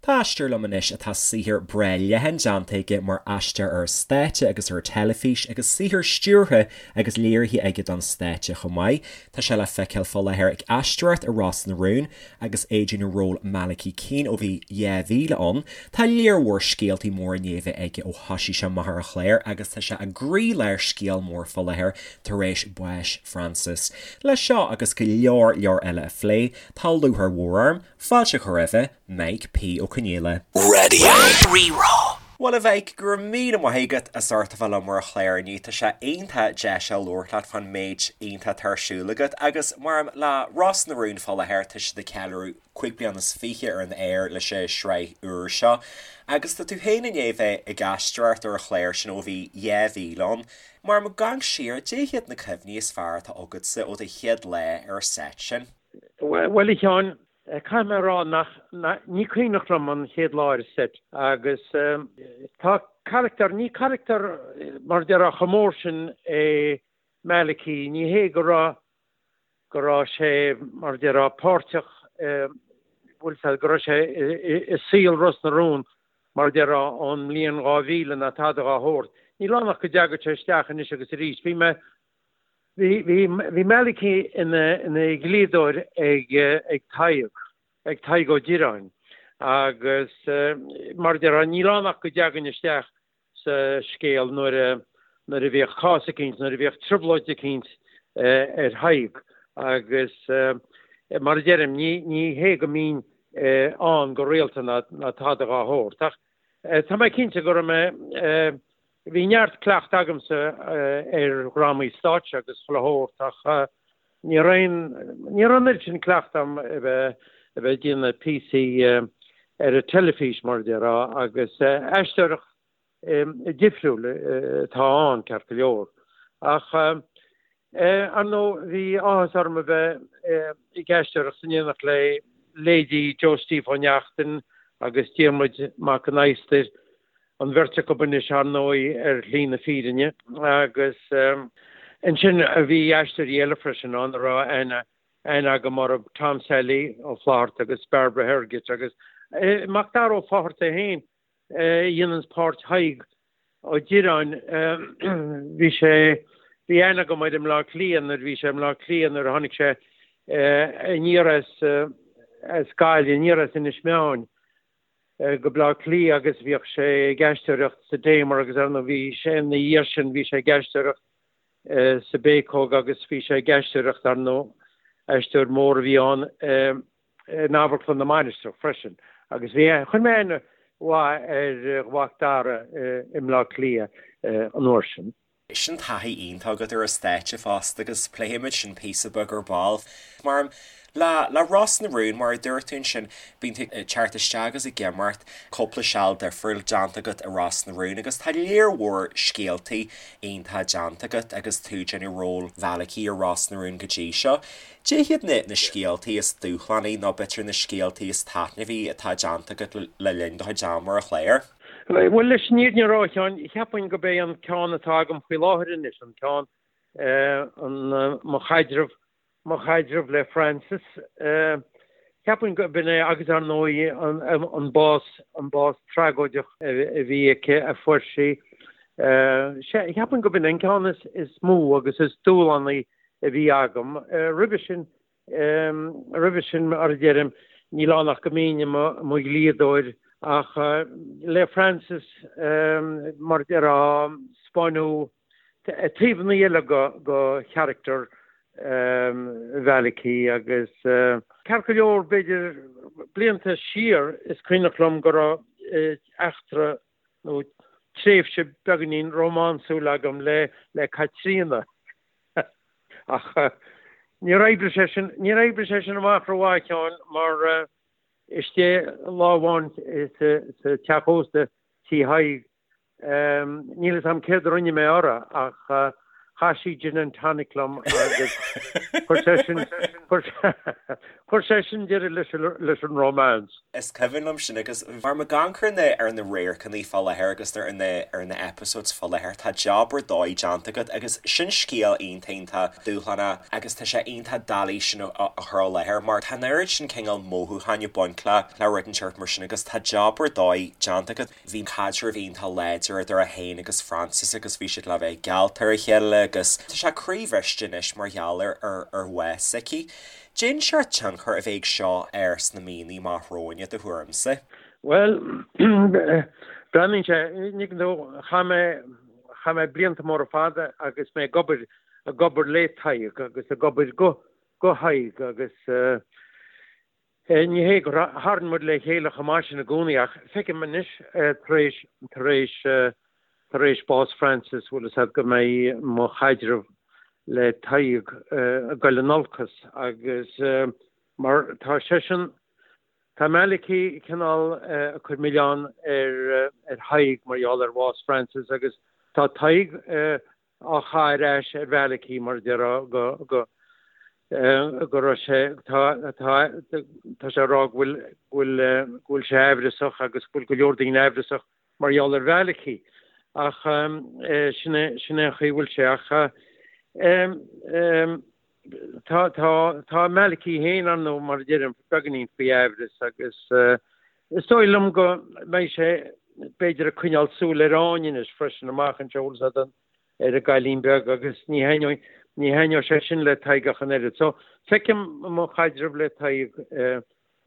Tá aisteoir liom anois atá saothar breá leathan déanta aige mar aisteoir ar an stáitse agus ar an teilifís agus saothar stiúrtha agus léirithe aige don stáitse chomh maith. Tá sé le feiceáil fá láthair ag aisteoireacht i Ros na Rún agus é ag déanamh ról Malachy Keane ó bhí 2000 ann. Tá léar mhór scéaltaí móra i ndiaidh a bheith aige ó thoisigh sé amach ar an chlár agus tá sé i gcroílár scéal mór fá láthair tar éis báis Frances. Le seo agus go leor leor eile a phlé, tá lúcháir mhór orm fáilte a chur roimhe, Mike P. Ó Conghaile. Radio Rí-Rá. Bhuel a Mhike, go raibh míle maith agat as ucht a bheith liom ar an chlár inniu. Tá sé iontach deis a labhairt leat fán méid iontach atá ar siúl agat agus mar le Ros na Rún fá láthair tá siad ag ceiliúradh 25 bliana ar an aer leis an sraith úr seo agus tá tú féin i ndiaidh bheith ag aisteoireacht ar an chlár sin ó bhí 2000 ann. Mar ag amharc siar, cad é hiad na cuimhní is fearr atá agatsa ó do chéad lá ar an seit sin? Bhuel a Sheáin, Caithfidh mé a rá nach, ní cuimhneach liom an chéad lá ar an seit agus tá carachtar, ní carachtar mar a déarfá chomh mór sin é Malachy, ní hé go raibh, go raibh sé mar a déarfá páirteach, bhfuil fhios a'd, go raibh sé i saol Ros na Rún mar a déarfá ón mbliain 2000 ná tada dhá shórt. Níl ann ach go dteagadh sé isteach anois agus arís. Bhí mé Bhí Malachy ina dhlíodóir ag Tadhg, ag Tadhg Ó Direáin, agus mar a déarfá, níl ann ach go dteagainn isteach sa scéal nuair a nuair a bhíodh cás eicínt, nuair a bhíodh trioblóid eicínt ar Thadhg agus mar a deirim, ní hé go mbínn ann go rialta ná tada dhá shórt ach tá mé cinnte go raibh mé Bhí neart cleachtadh agamsa ar dhrámaí stáitse agus chuile shórt ach ní raibh aon, ní raibh an oiread sin cleachtadh agam a bheith, a bheith ag déanamh píosaí ar an teilifís mar a déarfá agus aisteoireacht difriúil atá ann ceart go leor. Ach ar ndóigh bhí áthas orm a bheith ag aisteoireacht in éineacht le leithéidí Joe Steve Ó Neachtain agus Diarmuid Mac an Adhastair an bheirt acu anois, ar ndóigh, ar shlí na fírinne. Agus ansin bhí aisteoirí eile freisin ann a raibh aithne aithne agam orthu, Tom Sally Ó Flaithearta agus Barbara Hergett agus Macdara Ó Fátharta é féin a dhéananns páirt Thaidhg Ó Direáin. Bhí sé, bhí aithne agam air i mBleá Cliath nuair a bhí sé i mBleá Cliath nuair a tháinig sé aniar as as Gaillimh, aniar as Inis Meáin. go Bleá Cliath agus bhíodh sé ag aisteoireacht sa Damer agus ar ndóigh bhí sé ina dhiaidh sin bhí sé ag aisteoireacht sa Bhéacóg agus bhí sé ag aisteoireacht ar ndóigh aisteoir mór a bhí ann in Amharclann na Mainistreach freisin agus bhí chuir mé aithne mhaith ar Mhac Dara i mBleá Cliath an uair sin. Sin taithí iontach agat ar an stáitse fosta agus pléifimid sin píosa beag ar ball. Mar, le, le Ros na Rún, mar a dúirt tú ansin, bíonn tú ag teacht isteach agus ag imeacht, cúpla seal difriúil déanta agat i Ros na Rún agus tá léar mhór scéaltaí iontacha déanta agat agus tú ag déanamh ról Mhalachy i Ros na Rún go dtí seo. Cad é hiad na, na scéaltaí is dúshlánaí nó b'fhéidir na scéaltaí is taitneamhaí atá déanta agat le, le linn do chuid ama ar an chlár? Bhuel, leis an fhírinne a rá, a Sheáin, cheapfainn gurb é an ceann atá agam faoi láthair anois, an ceann, an, mo chaidreamh, mo chaidreamh le Frances, cheapfainn gurb in é agus ar ndóigh an, an bás, an bás tragóideach a bhí aici, a fuair sí. Cheapfainn gurb in é an ceann is, is mó agus is dúshlánaí a bhí agam. Roimhe sin, Roimhe sin, mar a deirim, níl ann ach go mbínn i mo dhlíodóir ach le Frances, mar a déarfá, 'spáineadh taobhanna eile de charachtar Mhalachy agus ceart go leor, b'fhéidir blianta siar, is cuimhneach liom go raibh eachtra nó tréimhse beagáinín rómánsúil agam le Caitríona. Ach níor oibrigh sé sin, níor oibrigh sé sin amach rómhaith, a Sheáin, mar istigh lá amháin sa teach ósta, Tí Thaidhg, níl 'fhios a'm céard a rinne mé uirthi ach Chaith sí gin and tonic liom agus chuir sé sin, chuir sé sin deireadh leis an, leis an romance. Is cuimhin liom sin agus mar ag amharc ar na, ar na radharcanna fá láthair agus ar na, ar na episodes fá láthair, tá job ar dóigh déanta agat agus sin scéal iontach, iontach dúshlánach agus tá sé iontach doiligh sin a, a chur i láthair mar tá an oiread sin cineál mothúcháin ag baint le, le rud inteacht mar sin agus tá job ar dóigh déanta agat. Bhí caidreamh iontach láidir idir é féin agus Frances agus bhí siad le bheith geallta ar a chéile agus tá sé croíbhriste anois mar gheall ar ar bhás s'aici. Cén seort tionchar a bheidh ag seo air sna míonna amach romhainn i do thuairimse? Bhuel, breathnaíonn sé, ní dóigh, chaith mé, chaith mé blianta móra fada agus mé ag obair, ag obair le Tadhg agus ag obair go, go Tadhg agus eh, Ní hé gur tharraing muid le chéile chomh maith sin i gcónaí ach feicim anois tar éis, tar éis, tar éis bás Frances, bhfuil fhios a'd, go mbeidh mo chaidreamh le Tadhg ag goil in olcas agus mar tá seisean, tá Malachy cineál ag cur milleán ar, ar Thadhg mar gheall ar bhás Frances agus tá Tadhg á chaitheamh ar ais ar Mhalachy mar a déarfá go go go raibh sé tá tá tá sé ag rá go bhfuil go bhfuil go bhfuil sé aimhreasach agus go bhfuil go leor daoine aimhreasach mar gheall ar Mhalachy ach sin é sin é an chaoi a bhfuil sé ach Tá, tá, tá Malachy féin, ar ndóigh, mar a deirim, beagáinín faoi aimhreas agus is dóigh liom go mbeidh sé, b'fhéidir, ag coinneáil súil ar Áine anois freisin amach anseo, bhfuil fhios a'd, ar an gcailín beag agus ní thaitneoidh, ní thaitneoidh sé sin le Tadhg ach an oiread. So, feicim mo chaidreamh le Tadhg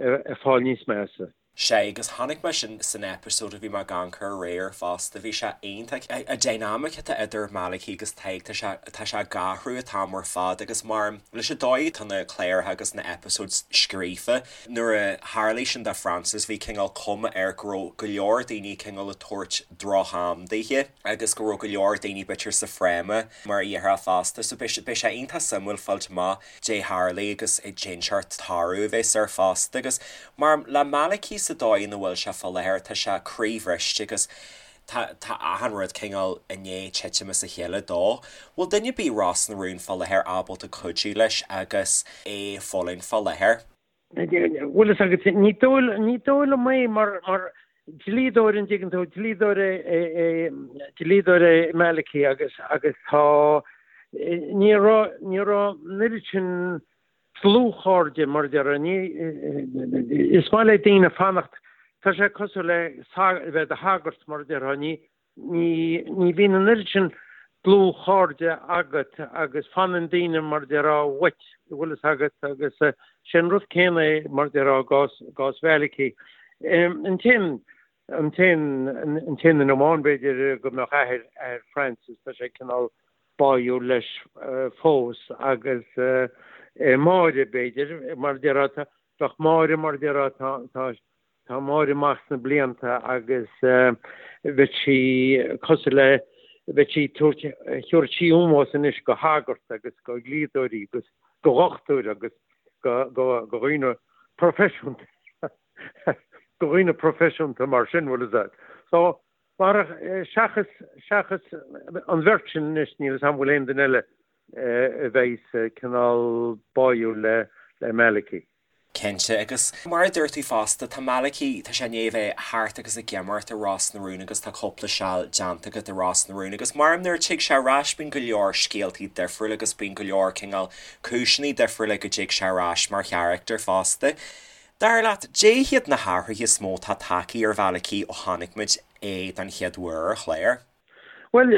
ag fáil níos measa. Sea, agus chonaic mé sin san episode a bhí mé ag amharc air aréir fosta, bhí sé iontach. An dynamic atá idir Malachy agus Tadhg, tá sé, tá sé ag athrú an t-am ar fad agus mar, leis an dóigh atá na cláracha agus na episodes scríofa, nuair a tharlaigh sin do Frances, bhí cineál cuma air go raibh go leor daoine cineál ag tabhairt droch-am daoithe agus go raibh go leor daoine b'fhéidir sa fráma mar a déarfá fosta, so beidh sé iontach suimiúil fáilt amach dé tharlaigh agus cén seort toradh a bheas air fosta agus mar le Malachy sa dóigh ina bhfuil sé fá láthair tá sé croíbhriste agus tá tá achan rud cineál i ndiaidh titim as a chéile dó. Bhfuil duine ar bith i Ros na Rún fá láthair ábalta cuidiú leis agus é ag fulaingt fá láthair? Bhfuil fhios agat, ní dóigh ní dóigh liom é mar mar dlíodóir an dtuigeann tú, dlíodóir é é dlíodóir é Malachy agus agus tá ní raibh ní raibh an oiread sin dlúthchairde mar a déarfá, ní is maith le daoine fanacht tá sé cosúil le bheith i do shagart mar a déarfá, ní Ní, ní bhíonn an oiread sin dlúthchairde agat agus fanann daoine mar a déarfá uait, an bhfuil fhios agat, agus sé an rud céanna é mar a déarfá i gcás, i gcás Mhalachy. An t-aon, an t-aon, an t-aon duine amháin b'fhéidir go mbeadh athair, athair Frances, tá sé cineál báúil leis fós agus Máire b'fhéidir, mar a déarfá, tá, bheadh Máire mar a déarfá, tá, tá, Tá Máire amach sna blianta agus bheadh sí cosúil le, bheadh sí ag tabhairt, thabharfadh sí ómós anois go shagart agus go dhlíodóirí agus go dhochtúir agus go, go, go dhaoine proifisiúnta, go dhaoine proifisiúnta mar sin, bhfuil fhios a'd. So, mar, seachas, seachas an bheirt sin anois, níl fhios a'm bhfuil aon duine eile a bheas cineál báúil le, le Malachy. Cinnte, agus mar a dúirt tú fosta, tá Malachy, tá sé i ndiaidh a bheith thart agus ag imirt i Ros na Rún agus tá cúpla seal déanta agat i Ros na Rún agus mar nuair a tig sé ar ais bíonn go leor scéaltaí difriúla agus bíonn go leor cineál cúiseanna difriúla go dtig sé ar ais mar charachtar fosta. Dar leat, dé hiad na hathruithe is mó atá tagtha ar Mhalachy ó chonaic muid é don chéad uair ar chlár? Bhuel,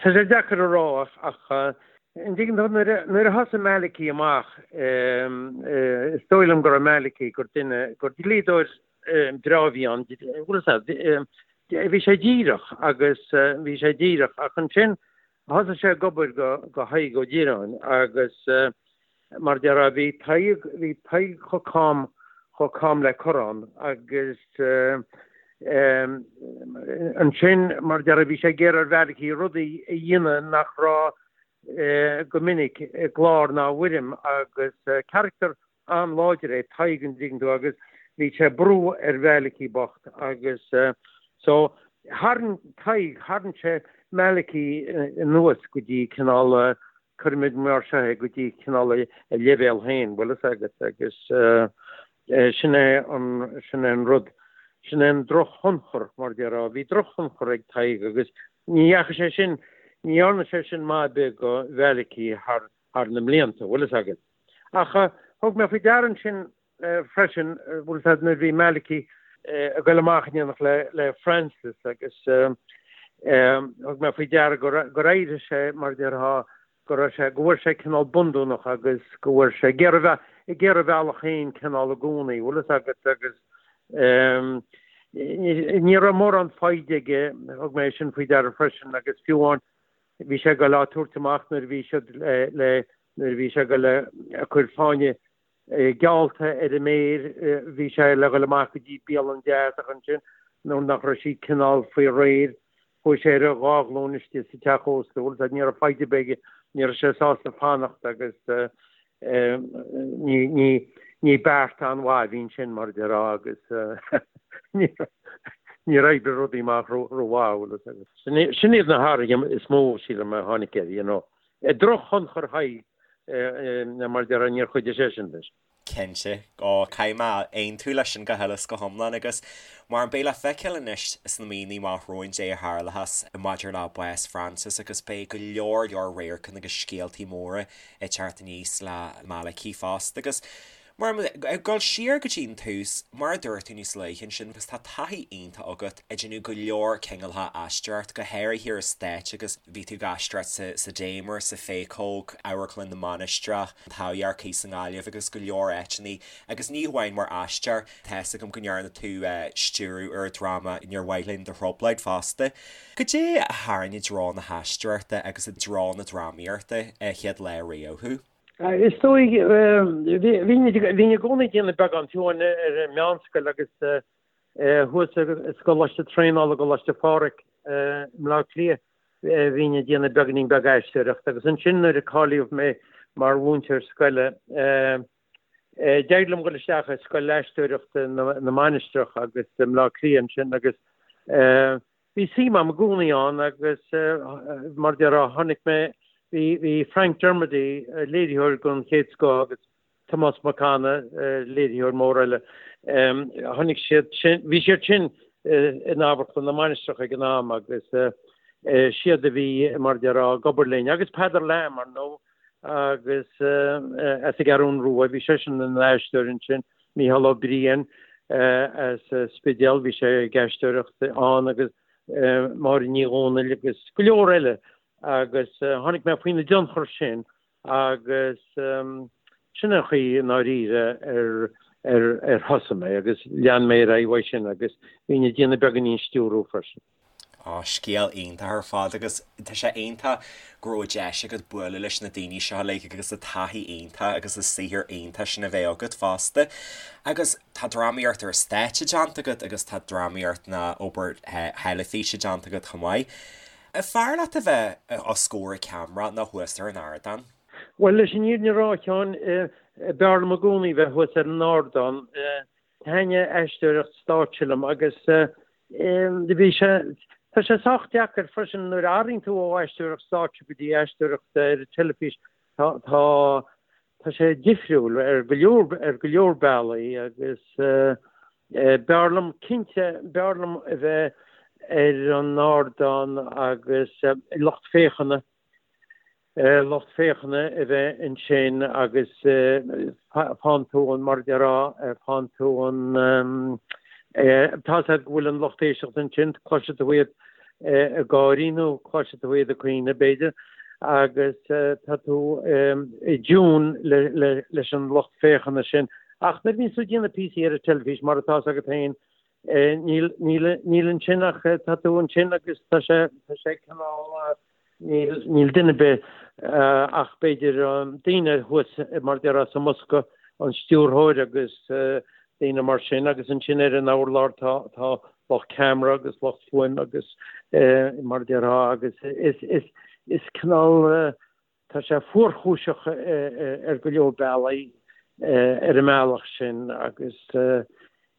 tá sé deacair a rá ach an dtuigeann tú, nuair a thosaigh Malachy amach, is dóigh liom go raibh Malachy, gur duine, gur dlíodóir breá a bhí ann, bhfuil fhios a'd, bhí sé díreach agus bhí sé díreach ach ansin thosaigh sé ag obair go Tadhg Ó Direáin agus Mar a déarfá, bhí Tadhg, bhí Tadhg chomh cam, chomh cam le corrán agus ansin, mar a déarfá, bhí sé ag iarraidh ar Mhalachy rudaí a dhéanamh nach raibh go minic i gclár ná i bhfoirm agus carachtar an-láidir é Tadhg an dtuigeann tú agus bhí sé ag brú ar Mhalachy bocht agus so. Tharraing Tadhg, tharraing sé Malachy anuas go dtí cineál, cuirimid mar seo é, go dtí cineál a leibhéal féin, bhfuil fhios agat, agus sin é an, sin é an rud, sin é an drochthionchar, mar a déarfá. Bhí drochthionchar ag Tadhg agus ní dheachaigh sé sin, ní dhearna sé sin maith ar bith do Mhalachy thar, thar na mblianta, bhfuil fhios agat. Ach thug mé faoi deara ansin freisin, bhfuil fhios agat, nuair a bhí Malachy ag goil amach in éineacht le Francis agus thug mé faoi deara gur éirigh sé, mar a déarfá, go raibh sé, go bhfuair sé cineál bundúnach agus go bhfuair sé ag iarraidh, ag iarraidh a bhealach féin cineál i gcónaí, bhfuil fhios agat, agus ní raibh mórán foighde aige, thug mé sin faoi deara freisin agus fiú amháin bhí sé ag goil á tabhairt amach nuair a bhí siad le, nuair a bhí sé ag goil ag cur fáinne geallta ar a méir, bhí sé le dhul amach go dtí bialann deas ach ansin nuair nach raibh sí cineál faoi réir, chuaigh sé ar a dhá ghlúin istigh sa teach ósta, bhfuil fhios agat, ní raibh foighde ar bith aige, ní raibh sé sásta fanacht agus ní, ní, ní beart an-mhaith a bhí ansin mar a déarfá agus níor oibrigh rudaí amach ró-mhaith, bhfuil fhios agat. Sin iad na hathruithe is mó, sílim, a tháinig air, you know. Drochthionchar Thaidhg mar a déarfá, níor chuidigh sé sin leis. Cinnte. Ó, caithfidh mé aontú leis sin go huile is go hiomlán agus mar beidh le feiceáil anois sna míonna amach romhainn caidé a tharlóchas maidir le bás Francis agus beidh go leor leor radharcanna agus scéaltaí móra ag teacht aníos le Malachy fosta agus Mar, ag dul siar go dtí an tús, mar a dúirt tú níos luaithe ansin, agus tá taithí iontach agat ag déanamh go leor cineálacha aisteoireacht, go háirithe ar an stáitse agus bhí tú ag aisteoireacht sa, sa Damer, sa Phéacóg, Amharclann na Mainistreach, an Taibhdhearc sa nGaillimh agus go leor áiteanna agus ní hamháin mar aisteoir, tá fhios agam go ndearna tú stiúradh ar an dráma Níor Mhaith Linn Do Thrioblóid fosta. Goidé a tharraing i dtreo na haisteoireachta agus i dtreo na drámaíochta an chéad lá riamh thú? Is dóigh, bhínn i gcónaí ag déanamh beagán, fiú amháin ar an meánscoil agus thuas i gColáiste Traenála, Coláiste Phádraig i mBleá Cliath, bhínn ag déanamh beagáinín beag aisteoireachta agus ansin nuair a cáilíodh mé mar mhúinteoir scoile, d'éirigh liom dul isteach i Scoil Aisteoireachta na Mainistreach agus i mBleá Cliath ansin agus Bhí suim agam i gcónaí ann agus mar a déarfá tháinig mé, bhí, bhí Frank Dermody, léiritheoir den chéad scoth agus Tomás Mac Anna, léiritheoir mór eile, tháinig siad sin, bhí siad sin in Amharclann na Mainistreach ag an am agus siad a bhí mar a déarfá ag obair linn agus Peadar Lamb ar ndóigh agus as an gCeathrún Rua, bhí seisean ina aisteoir ansin, Mícheál Ó Briain as Spidéal, bhí sé ag aisteoireacht ann agus Máire Ní Dhomhnaill agus go leor eile agus tháinig mé faoina dtionchar sin agus sin an chaoi i ndáiríre ar ar ar thosaigh mé agus lean mé ar aghaidh uaidh sin agus bhínn ag déanamh beagáinín stiúrú freisin. Á, scéal iontach ar fad agus tá sé iontach go raibh deis agat bualadh leis na daoine seo uilig agus an taithí iontach agus an saothar iontach sin a bheith agat fosta. Agus tá drámaíocht ar stáitse déanta agat agus tá drámaíocht nó obair theilifíse déanta agat chomh maith. An fearr leat a bheith os comhair an cheamara nó thuas ar an ardán? Bhuel, leis an fhírinne a rá, a Sheáin, b'fhearr liom i gcónaí bheith thuas ar an ardán. Thaitnigh aisteoireacht stáitse liom agus bhí sé, tá sé sách deacair freisin nuair a athraíonn tú ó aisteoireacht stáitse go dtí aisteoireacht ar an teilifís, tá, tá, tá sé difriúil ar go leor, ar go leor bealaí agus b'fhearr liom, cinnte, b'fhearr liom a bheith ar an ardán agus lucht féachana. lucht féachana a bheith ansin agus faigheann tú an, mar a déarfá, faigheann tú an, tá 'fhios agat go bhfuil an lucht éisteachta ansin, cloisfidh tú iad ag gáirí nó cloisfidh tú iad ag caoineadh b'fhéidir agus tá tú i dtiún leis an lucht féachana sin. Ach nuair a bhíonns tú ag déanamh píosaí ar an teilifís, mar atá 'fhios agat féin, níl, níl, níl ansin ach tá tú ansin agus tá sé, tá sé cineál, Níl, níl duine ar bith ach b'fhéidir daoine thuas mar a déarfá sa mbosca, an stiúrthóir agus daoine mar sin agus ansin ar an urlár tá, tá lucht ceamara agus lucht fuaime agus mar a déarfá agus is, is, is cineál, tá sé fuarchúiseach ar go leor bealaí ar an mbealach sin agus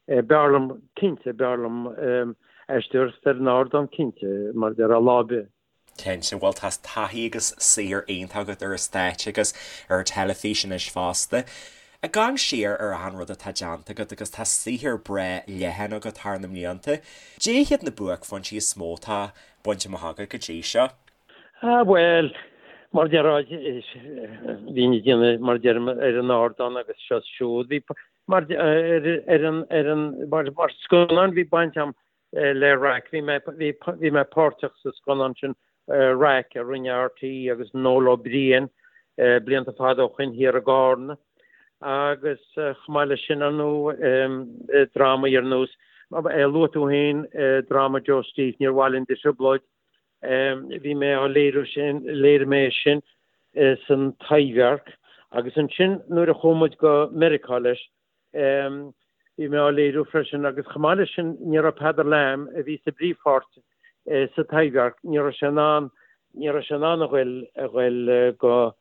b'fhearr liom, cinnte, b'fhearr liom. aisteoireacht ar an ardán cinnte, mar a déarfá, lá ar bith. Cinnte, bhuel tá taithí agus saothar iontach agat ar an stáitse agus ar an teilifís anois fosta. Ag amharc siar ar achan rud atá déanta agat agus tá saothar breá leathan agat thar na mblianta, cad iad na buaicphointí is mó atá bainte amach agat go dtí seo? Ah bhuel, mar a déarfá, bhínn ag déanamh, mar a deirim, ar an ardán agus seo is siúd, bhí, mar, ar, ar an, ar an, mar, mar scannán bhí baint agam le Raic. Bhí mé, bhí, bhí mé páirteach sa scannán sin Raic a rinne RTÉ agus Noel Ó Briain blianta fada ó shoin thiar i gCarna. Agus chomh maith leis sin, ar ndóigh, drámaí ar nós, luaigh tú féin dráma Joe Steve, Níor Mhaith Linn do Thrioblóid, bhí mé á léiriú sin, léirigh mé sin san Taibhdhearc agus ansin nuair a chuaigh muid go Meiriceá leis, Bhí mé á léiriú freisin agus chomh maith leis sin ní raibh Peadar Lamb, a bhí sa bpríomhpháirt sa Taibhdhearc, ní raibh sé in ann, ní raibh sé in ann a ghoil, a ghoil go,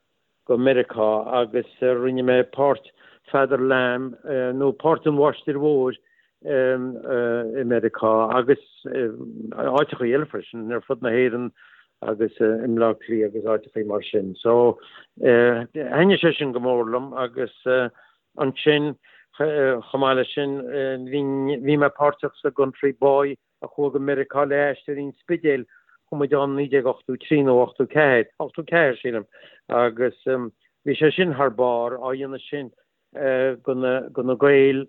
go Meiriceá agus rinne mé páirt Pheadar Lamb nó páirt an Mháistir Mhóir i Meiriceá agus áiteachaí eile freisin ar fud na hÉireann agus i mBleá Cliath agus áiteachaí mar sin. So thaitnigh sé sin go mór liom agus Ansin, chomh maith leis sin, bhí mé páirteach sa gCountry Boy a chuaigh go Meiriceá le Aisteoirí an Spidéil, chuaigh muid ann 1983 nó 84, 84 sílim, agus bhí sé sin thar barr, á dhéanamh sin do na Gaeil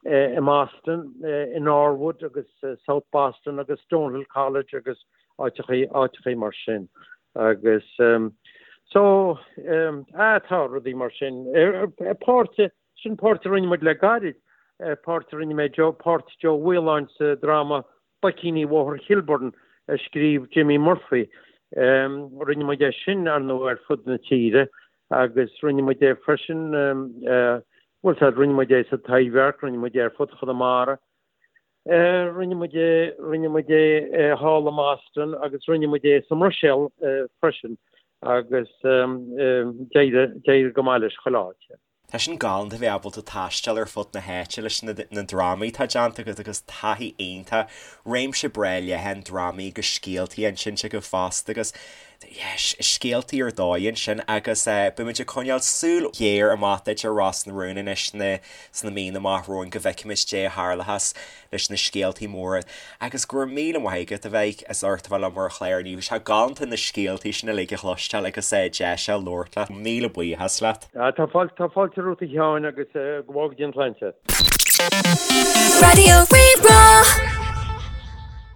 i mBoston, i Norwood agus South Boston agus Stonehill College agus áiteachaí, áiteachaí mar sin. Agus so, ah, tá rudaí mar sin. Páirt, sin páirt a rinne muid le gairid, páirt a rinne mé, Joe, páirt Joe Mhaoláin sa dráma Boicíní Bhóthar Chilburn a scríobh Jimmy Murphy. Rinne muid é sin, ar ndóigh, ar fud na tíre agus rinne muid é freisin, bhuel, rinne muid é sa Taibhdhearc, rinne muid é ar fud Chonamara. Rinne muid é, rinne muid é thall i mBoston agus rinne muid é sa mBruiséil freisin agus d'éirigh, d'éirigh go maith leis chuile áit. Tá sin galánta bheith ábalta taisteal ar fud na háite leis na na drámaí atá déanta agat agus taithí iontach, réimse breá leathan drámaí agus scéaltaí insinte agat fosta agus yeah, scéaltaí ar dóigh ansin agus beidh muid ag coinneáil súil ghéar amach duit ar Ros na Rún anois sna sna míonna amach romhainn go bhfeicfimid dé a tharlóchas leis na scéaltaí móra agus go raibh míle maith agat a bheith as ucht a bheith liom ar an chlár inniu. Bhí sé galánta na scéaltaí sin uilig a chloisteáil agus deis a labhairt leat. Míle buíochas leat. Tá fáilte, tá fáilte romhat a Sheáin agus go bhfága Dia an tsláinte. Raidió Rí-Rá.